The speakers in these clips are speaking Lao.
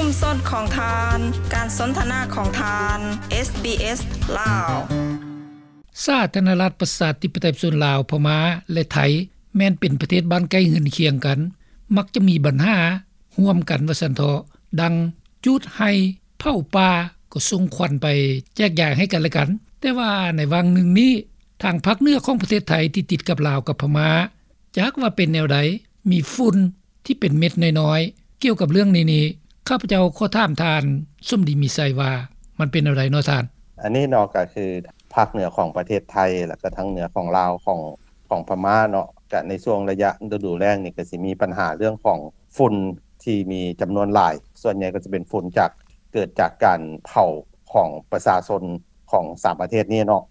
ຊຸມຊົນຂອງທ່ານ, ການສົນທະນາຂອງທ່ານ, ເອສບີເອສ ລາວ. ສາທາລະນະລັດ ປະຊາທິປະໄຕ ປະຊາຊົນລາວ, ພະມ້າ ແລະ ໄທ ແມ່ນເປັນປະເທດບ້ານໃກ້ເຮືອນຄຽງກັນ, ມັກຈະມີບັນຫາຮ່ວມກັນວ່າຊັ້ນເຖາະ, ດັ່ງຈູດໄຮ່ ເຜົາປ່າ ກໍສົ່ງຄວັນໄປແຈກຢາຍໃຫ້ກັນແລະກັນ. ແຕ່ວ່າໃນຫວ່າງໜຶ່ງນີ້ ທາງພາກເໜືອຂອງປະເທດໄທທີ່ຕິດກັບລາວກັບພະມ້າ ຈັກວ່າເປັນແນວໃດ, ມີຝຸ່ນທີ່ເປັນເມັດນ້ອຍໆ. ກ່ຽວກັບເລື່ອງນີ້ນີ້ ຂ້າພະເຈົ້າຂໍຖາມທ່ານສົມດີ ມີໄຊ ວ່າມັນເປັນແນວໃດເນາະທ່ານ? ອັນນີ້ເນາະ ກໍຄືພາກເໜືອຂອງປະເທດໄທ ແລ້ວກໍທາງເໜືອຂອງລາວ ຂອງ ຂອງພະມ້າເນາະ, ກໍໃນຊ່ວງໄລຍະລະດູແລ້ງນີ້ ກໍຊິມີບັນຫາເລື່ອງຂອງຝຸ່ນທີ່ມີຈຳນວນຫຼາຍ, ສ່ວນໃຫຍ່ກໍຈະເປັນຝຸ່ນຈາກ ເກີດຈາກການເຜົາຂອງປະຊາຊົນຂອງສາມປະເທດນີ້ເນາະ.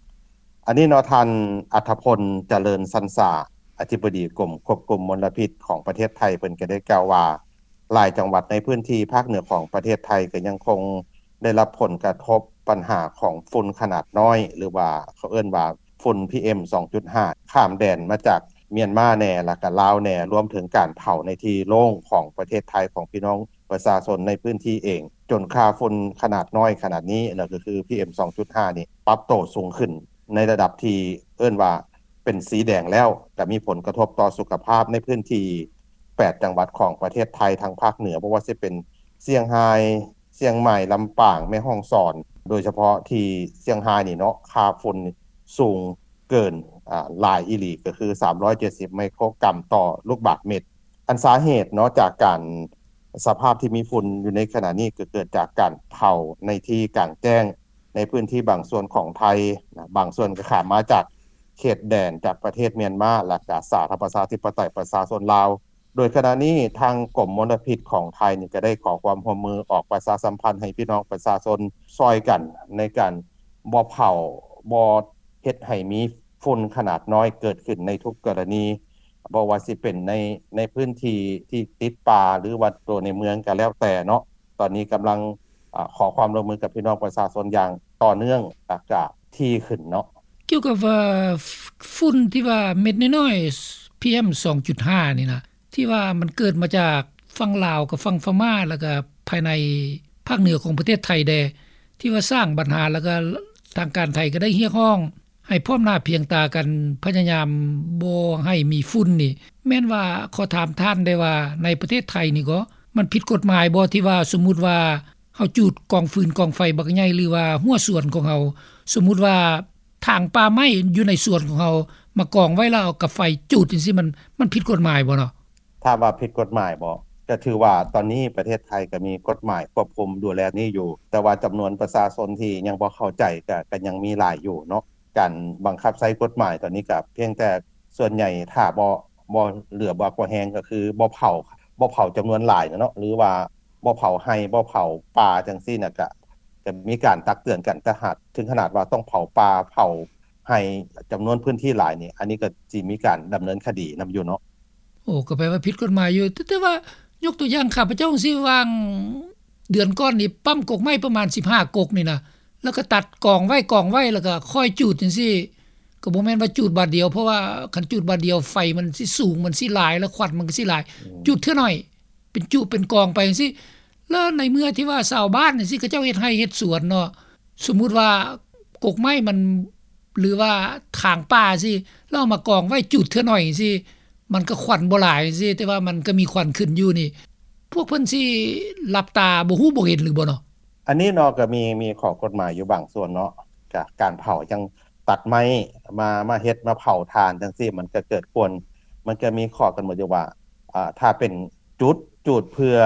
ອັນນີ້ເນາະ ທ່ານ ອັດທະພົນ ຈະເລີນສັນສາ ອະທິບໍດີກົມຄວບຄຸມມົນລະພິດຂອງປະເທດໄທ ເພິ່ນກໍໄດ້ກ່າວວ່າ ຫຼາຍຈັງຫວັດໃນພື້ນທີ່ພາກເໜືອຂອງປະເທດໄທ ກໍຍັງຄົງໄດ້ຮັບຜົນກະທົບບັນຫາຂອງຝຸ່ນຂະໜາດນ້ອຍ ຫຼືວ່າເຂົາເອີ້ນວ່າຝຸ່ນ ພີເອັມ ສອງຈຸດຫ້າ ຂ້າມແດນມາຈາກມຽນມາແດ່ ແລ້ວກໍລາວແດ່, ລວມເຖິງການເຜົາໃນທີ່ໂລ່ງຂອງປະເທດໄທ ຂອງພີ່ນ້ອງປະຊາຊົນໃນພື້ນທີ່ເອງ, ຈົນຄ່າຝຸ່ນຂະໜາດນ້ອຍຂະໜາດນີ້ ແລ້ວກໍຄື ພີເອັມ ສອງຈຸດຫ້າ ນີ້ ປັບໂຕສູງຂຶ້ນໃນລະດັບທີ່ເອີ້ນວ່າເປັນສີແດງແລ້ວ, ກໍມີຜົນກະທົບຕໍ່ສຸຂະພາບໃນພື້ນທີ່ແປດຈັງຫວັດຂອງປະເທດໄທທາງພາກເໜືອ, ບໍ່ວ່າຊິເປັນຊຽງຮາຍ, ຊຽງໃໝ່, ລຳປາງ, ແມ່ຮ່ອງສອນ, ໂດຍສະເພາະທີ່ຊຽງຮາຍນີ້ເນາະ ຄ່າຝຸ່ນສູງເກີນ ອາ ຫຼາຍອີ່ຫຼີ ກໍຄື ສາມຮ້ອຍເຈັດສິບ ໄມໂຄຣກຣາມຕໍ່ລູກບາດເມັດ. ອັນສາເຫດເນາະ ຈາກການ ສະພາບທີ່ມີຝຸ່ນຢູ່ໃນຂະນະນີ້ ກໍເກີດຈາກການເຜົາໃນທີ່ກາງແຈ້ງ ໃນພື້ນທີ່ບາງສ່ວນຂອງໄທນະ, ບາງສ່ວນກໍຂ້າມມາຈາກເຂດແດນ ຈາກປະເທດມຽນມາ ແລະ ກະສາທາລະນະລັດ ປະຊາທິປະໄຕ ປະຊາຊົນລາວ. ໂດຍຂະນະນີ້ ທາງກົມມົນລະພິດຂອງໄທນີ້ ກໍໄດ້ຂໍຄວາມຮ່ວມມືອອກປະຊາສຳພັນໃຫ້ພີ່ນ້ອງປະຊາຊົນຊ່ອຍກັນໃນການບໍ່ເຜົາ, ບໍ່ເຮັດໃຫ້ມີຝຸ່ນຂະໜາດນ້ອຍເກີດຂຶ້ນໃນທຸກກໍລະນີ, ບໍ່ວ່າຊິເປັນໃນ, ໃນພື້ນທີ່ທີ່ຕິດປ່າ ຫຼືວ່າຕົວໃນເມືອງກໍແລ້ວແຕ່ເນາະ. ຕອນນີ້ກຳລັງ ອາ ຂໍຄວາມຮ່ວມມືກັບພີ່ນ້ອງປະຊາຊົນຢ່າງຕໍ່ເນື່ອງ ແລ້ວກະຖີ່ຂຶ້ນເນາະ. ກ່ຽວກັບວ່າ ຝຸ່ນທີ່ວ່າເມັດນ້ອຍໆ ພີເອັມ ສອງຈຸດຫ້າ ນີ້ນະ ທີ່ວ່າມັນເກີດມາຈາກຝັ່ງລາວກັບຝັ່ງພະມ້າ ແລ້ວກະພາຍໃນພາກເໜືອຂອງປະເທດໄທແດ່ ທີ່ວ່າສ້າງບັນຫາ ແລ້ວກະທາງການໄທກໍໄດ້ຮຽກຮ້ອງ ໃຫ້ພ້ອມໜ້າພຽງຕາກັນ ພະຍາຍາມບໍ່ໃຫ້ມີຝຸ່ນນີ້ ແມ່ນວ່າ ຂໍຖາມທ່ານໄດ້ວ່າ ໃນປະເທດໄທນີ້ກໍ ມັນຜິດກົດໝາຍບໍ່ ທີ່ວ່າສົມມຸດວ່າເຮົາຈູດກອງຟືນກອງໄຟບັກໃຫຍ່ ຫຼືວ່າຮົ້ວສວນຂອງເຮົາ, ສົມມຸດວ່າຖາງປ່າໄມ້ຢູ່ໃນສວນຂອງເຮົາ ມາກອງໄວ້ແລ້ວເອົາກັບໄຟຈູດຈັ່ງຊີ້ ມັນ ມັນຜິດກົດໝາຍບໍ່ເນາະ? ຖາມວ່າຜິດກົດໝາຍບໍ່? ກໍຖືວ່າຕອນນີ້ປະເທດໄທກໍມີກົດໝາຍຄວບຄຸມດູແລນີ້ຢູ່, ແຕ່ວ່າຈຳນວນປະຊາຊົນທີ່ຍັງບໍ່ເຂົ້າໃຈ ກໍ ກໍຍັງມີຫຼາຍຢູ່ເນາະ. ການບັງຄັບໃຊ້ກົດໝາຍຕອນນີ້ກໍພຽງແຕ່ສ່ວນໃຫຍ່ຖ້າບໍ່ ບໍ່ເຫຼືອບໍ່ ບໍ່ແຮງກໍຄືບໍ່ເຜົາ ບໍ່ເຜົາຈຳນວນຫຼາຍນະເນາະ ຫຼືວ່າບໍ່ເຜົາໄຮ່ ບໍ່ເຜົາປ່າຈັ່ງຊີ້ນະ ກະ ກະມີການຕັກເຕືອນກັນ ແຕ່ຫາກເຖິງຂະໜາດວ່າຕ້ອງເຜົາປ່າ ເຜົາໄຮ່ ຈຳນວນພື້ນທີ່ຫຼາຍນີ້ ອັນນີ້ກໍຊິມີການດຳເນີນຄະດີນຳຢູ່ເນາະ. ໂອ້ ກໍແປວ່າຜິດກົດໝາຍຢູ່ ແຕ່ ແຕ່ວ່າຍົກຕົວຢ່າງ ຂ້າພະເຈົ້າຈັ່ງຊີ້ ຫວ່າງເດືອນກ່ອນນີ້ ປ້ຳກົກໄມ້ປະມານສິບຫ້າກົກນີ້ນະ ແລ້ວກໍຕັດກອງໄວ້ ກອງໄວ້ ແລ້ວກໍຄ່ອຍຈູດຈັ່ງຊີ້ ກໍບໍ່ແມ່ນວ່າຈູດບາດດຽວ ເພາະວ່າຄັນຈູດບາດດຽວໄຟມັນຊິສູງ ມັນຊິຫຼາຍ ແລ້ວຄວັນມັນກໍຊິຫຼາຍ. ອືມ ຈູດເທື່ອໜ້ອຍ ເປັນຈຸເປັນກອງໄປຈັ່ງຊີ້. ແລ້ວໃນເມື່ອທີ່ວ່າຊາວບ້ານຈັ່ງຊີ້ ເຂົາເຈົ້າເຮັດໄຮ່ເຮັດສວນເນາະ, ສົມມຸດວ່າກົກໄມ້ມັນ ຫຼືວ່າຖາງປ່າຊີ້ ແລ້ວເອົາມາກອງໄວ້ ຈູດເທື່ອໜ້ອຍຊີ້ ມັນກໍຄວັນບໍ່ຫຼາຍຊີ້ ແຕ່ວ່າມັນກໍມີຄວັນຂຶ້ນຢູ່ນີ້ ພວກເພິ່ນຊິຫຼັບຕາບໍ່ຮູ້ບໍ່ເຫັນຫຼືບໍ່ເນາະ? ອັນນີ້ເນາະ ກໍມີ ມີຂໍ້ກົດໝາຍຢູ່ບາງສ່ວນເນາະ, ກະການເຜົາຈັ່ງຕັດໄມ້ມາ ມາເຮັດ ມາເຜົາຖ່ານຈັ່ງຊີ້ ມັນກໍເກີດຄວນ ມັນກໍມີຂໍ້ກຳນົດຢູ່ວ່າ ອາ ຖ້າເປັນຈູດ ຈູດເພື່ອ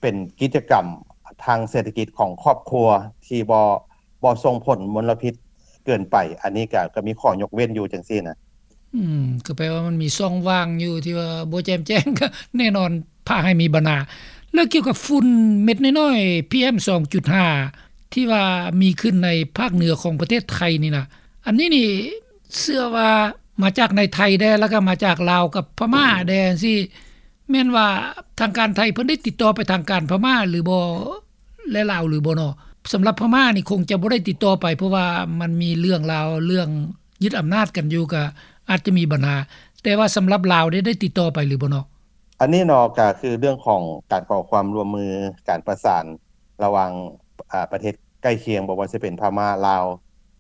ເປັນກິດຈະກຳທາງເສດຖະກິດຂອງຄອບຄົວທີ່ບໍ່ ບໍ່ສົ່ງຜົນມົນລະພິດເກີນໄປ, ອັນນີ້ກະ ກະມີຂໍ້ຍົກເວັ້ນຢູ່ຈັ່ງຊີ້ນະ. ອືມ ກໍແປວ່າມັນມີຊ່ອງວ່າງຢູ່ທີ່ວ່າບໍ່ແຈ່ມແຈ້ງ ກໍແນ່ນອນພາໃຫ້ມີບັນຫາ. ແລ້ວກ່ຽວກັບຝຸ່ນເມັດນ້ອຍໆ ພີເອັມ ສອງຈຸດຫ້າ ທີ່ວ່າມີຂຶ້ນໃນພາກເໜືອຂອງປະເທດໄທນີ້ນະ, ອັນນີ້ນີ້ເຊື່ອວ່າມາຈາກໃນໄທແດ່ ແລ້ວກໍມາຈາກລາວກັບພະມ້າແດ່ຈັ່ງຊີ້ ແມ່ນວ່າທາງການໄທເພິ່ນໄດ້ຕິດຕໍ່ໄປທາງການພະມ້າຫຼືບໍ່ ແລະ ລາວຫຼືບໍ່ເນາະ? ສຳລັບພະມ້ານີ້ຄົງຈະບໍ່ໄດ້ຕິດຕໍ່ໄປ ເພາະວ່າມັນມີເລື່ອງລາວ ເລື່ອງຍຶດອຳນາດກັນຢູ່ ກໍອາດຈະມີບັນຫາ, ແຕ່ວ່າສຳລັບລາວໄດ້ ໄດ້ຕິດຕໍ່ໄປຫຼືບໍ່ເນາະ? ອັນນີ້ເນາະ ກໍຄືເລື່ອງຂອງການຂໍຄວາມຮ່ວມມື ການປະສານ ລະຫວ່າງ ອາ ປະເທດໃກ້ຄຽງ ບໍ່ວ່າຈະເປັນພະມ້າ ລາວ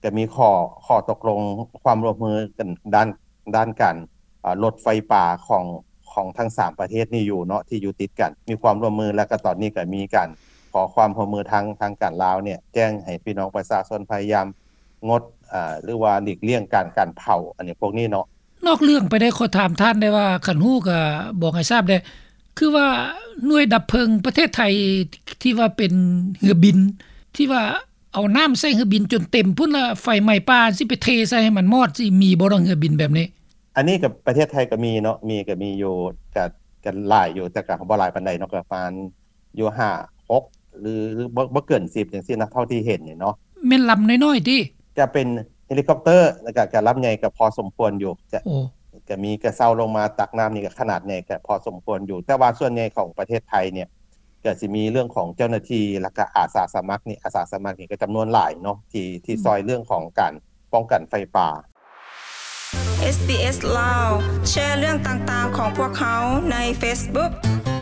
ກໍມີຂໍ້ ຂໍ້ຕົກລົງຄວາມຮ່ວມມືກັນດ້ານ ດ້ານການ ອາ ລົດໄຟປ່າຂອງ ຂອງທັງສາມປະເທດນີ້ຢູ່ເນາະ ທີ່ຢູ່ຕິດກັນ ມີຄວາມຮ່ວມມື ແລ້ວກໍຕອນນີ້ກໍມີການຂໍຄວາມຮ່ວມມືທາງ ທາງການລາວເນຍ ແຈ້ງໃຫ້ພີ່ນ້ອງປະຊາຊົນພະຍາຍາມງົດ ອາ ຫຼືວ່າຫຼີກລ່ຽງການ ການເຜົາ ອັນນີ້ ພວກນີ້ເນາະ. ນອກເລື່ອງໄປໄດ້ ຂໍຖາມທ່ານໄດ້ວ່າ ຄັນຮູ້ກໍບອກໃຫ້ຊາບແດ່ ຄືວ່າໜ່ວຍດັບເພີງປະເທດໄທ ທີ່ວ່າເປັນເຮືອບິນ ທີ່ວ່າເອົານ້ຳໃສ່ເຮືອບິນຈົນເຕັມພຸ້ນ ລະໄຟໄໝ້ປ່າ ຊິໄປເທໃສ່ໃຫ້ມັນມອດ ຊິມີບໍ່ເນາະ ເຮືອບິນແບບນີ້? ອັນນີ້ກໍປະເທດໄທກໍມີເນາະ ມີ ກໍມີຢູ່ ກໍ ກໍຫຼາຍຢູ່ ແຕ່ກໍບໍ່ຫຼາຍປານໃດເນາະ ກໍປະມານຢູ່ຫ້າ ຫົກ ຫຼື ຫຼືບໍ່ ບໍ່ເກີນສິບຈັ່ງຊີ້ນະ ເທົ່າທີ່ເຫັນນີ້ເນາະ. ແມ່ນລຳນ້ອຍໆຕິ? ຈະເປັນເຮລິຄອບເຕີ ແລ້ວກໍ ກໍລຳໃຫຍ່ກໍພໍສົມຄວນຢູ່ ຈະ ໂອ້ ກໍມີ ກໍເຊົ່າລົງມາຕັກນ້ຳນີ້ກໍຂະໜາດໃຫຍ່ກໍພໍສົມຄວນຢູ່ ແຕ່ວ່າສ່ວນໃຫຍ່ຂອງປະເທດໄທເນຍ ກໍຊິມີເລື່ອງຂອງເຈົ້າໜ້າທີ່ ແລ້ວກໍອາສາສະໝັກນີ້ ອາສາສະໝັກນີ້ກໍຈຳນວນຫຼາຍເນາະ ທີ່ ທີ່ ອືມ ຊ່ອຍເລື່ອງຂອງການປ້ອງກັນໄຟປ່າ. ເອສບີເອສ ລາວ ແຊເລື່ອງຕ່າງໆຂອງພວກເຮົາໃນເຟສບຸກ.